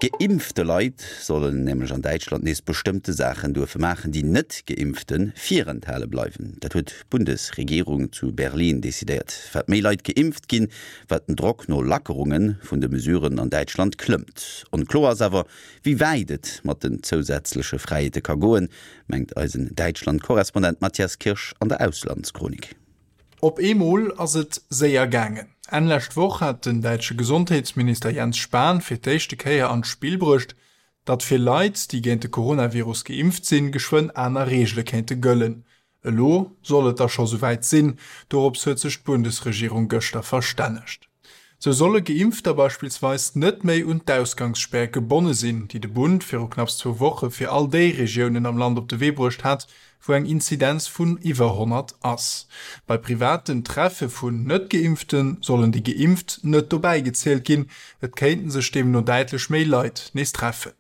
Geimpfte Leit sollen nämlech an Däitschland nees bestëmmte Saachen duerfe maachen, déi Net-Geimpfte virenthale bleiwen. Dat huet d'Bundesregierung zu Berlin decidéiert. Wat méi Leit geimpft ginn, wat den Drock no Lackerunge vun de Mesuren an Däitschland klëmmt. Onkloer ass awer, wéi wäit et mat den zousätzleche Fräiheete ka goen, mengt eisen Däitschland-Korrespondent Matthias Kirsch an der Auslandschronik. Op eemol ass et séier gaangen. Enn lescht Woch hat den däitsche Gesondheetsminister Jens Spahn fir d'éischte Kéier an d'Spill bruecht, datt fir Leit, déi géint de Coronavirus geimpft sinn, geschwënn aner Reegele kéinte gëllen. Elo soll et da scho souwäit sinn, dorops huet sech d'Bundesregierung gëschter verstännegt. Sou solle Geimpfter beispillsweis net méi un d'Ausgangsspär gebonne sinn, déi de Bund viru knapps zwou Woche fir all déi Regiounen am Land op de Wee bruecht hat, wou eng Inzidenz vun iwwer 100 ass. Bei privaten Treffe vun Net-Geimpfte sollen déi Geimpft net dobäi gezielt ginn, et kéinten sech deemno däitlech méi Leit nees treffen.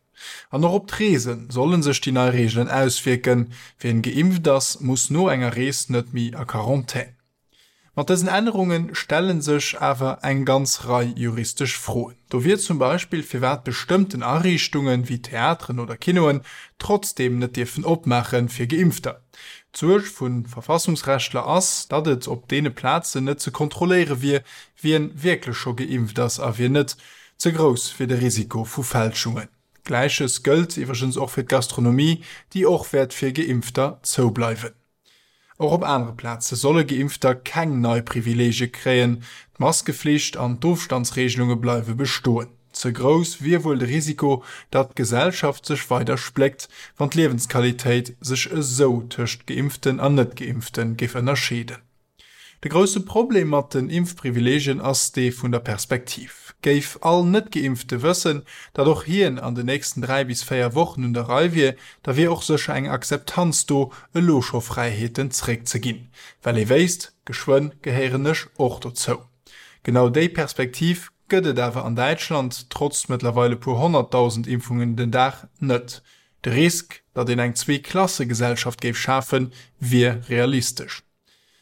An och op d'Reese solle sech déi nei Reegelen auswierken, Wien geimpft ass, muss no enger Rees net méi a Quarantän. Mat dësen Ännerunge stelle sech awer eng ganz Rei juristesch Froen. Do wier zum Beispill, firwat bestëmmten Ariichtungen, wéi Theateren oder Kinoen, trotzdeem net dierfen opmaache fir Geimpfter. D'Suerg vu Verfassungsrechtler ass, datt et op deene Plazen net ze kontrolléiere wier, wien wierklech scho geimpft ass a wien net. Ze grouss wier de Risiko vu Fälschungen. Gläiches gëllt iwwregens och fir d'Gastronomie, déi och wäert fir Geimpfter zoubleiwen. Och op anere Plaze solle Geimpfter keng nei Privileegie kréien, d'Maskeflicht an d'Ofstandsreegelunge bleiwe bestoen. Ze grouss wier wuel de Risiko, datt d'Gesellschaft sech weider spléckt, wann d'Liewensqualitéit sech esou tëscht Geimpften an Net-Geimpfte géif ënnerscheeden. De grousse Problem mat den Impfprivileegien ass dee vun der Perspektiv. Géif all Net-Geimpfte wëssen, datt och hien an den nächsten 3 bis 4 Wochen un der Rei wier, da wier och sécher eng Akzeptanz do, elo scho Fräiheeten zréckzeginn, well ee wéisst, geschwënn gehéieren ech och dozou. Genau déi Perspektiv gëtt et awer an Däitschland, trotz mëttlerweil e puer 100.000 Impfungen den Dag, net. De Risk, datt een eng Zwee-Klasse-Gesellschaft géif schafen, wier realistesch.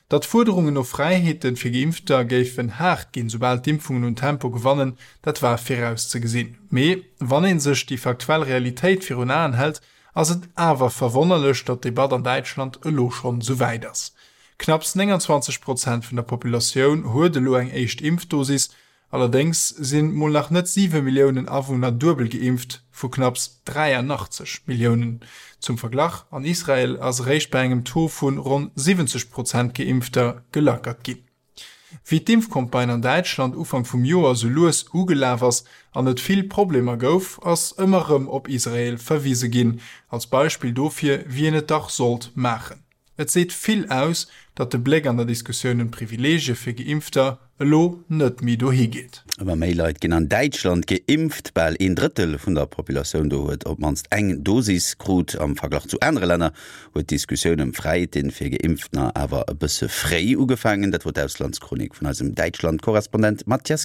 Datt d'Fuerderungen no Fräiheete fir Geimpfter géifen haart ginn, soubal d'Impfungen un Tempo gewannen, dat war virauszegesinn. Mee wann ee sech déi faktuell Realitéit virun Aen hält, ass et awer verwonnerlech, datt d'Debatt an Däitschland elo schonn esou wäit ass. Knapps 29 Prozent vun der Populatioun huet elo eng éischt Impfdosis, Allerdéngs sinn mol nach net 7 Milliounen Awunner duebel geimpft, vu knapps 83 Milliounen. Zum Verglach, An Israel ass eréischt bei engem Taux vu ronn 70 Prozent Geimpfter gelackert ginn. Wéi d'Impfcampagne an Däitschland Ufank vum Joer sou lues ugelaf ass an et vill Problemer gouf, ass ëmmer rëm op Israel verwise ginn, als Beispill dofir, wéi een et dach sollt maachen. Et seet vill aus, datt de Bléck an der Diskussioun ëm d'Privileegie fir Geimpfter elo net méi dohi geet. Ëmmer méi Leit ginn an Däitschland geimpft. Bal een Drëttel vun der Populatioun do huet op d'mannst eng Dosis krut. Am Verglach zu anere Länner huet d'Diskussioun ëm Fräiheete fir Geimpftener awer e bësse fréi ugefaangen. Dat wor d'Auslandschronik vun eisem Däitschland-Korrespondent Mathias Kirsch.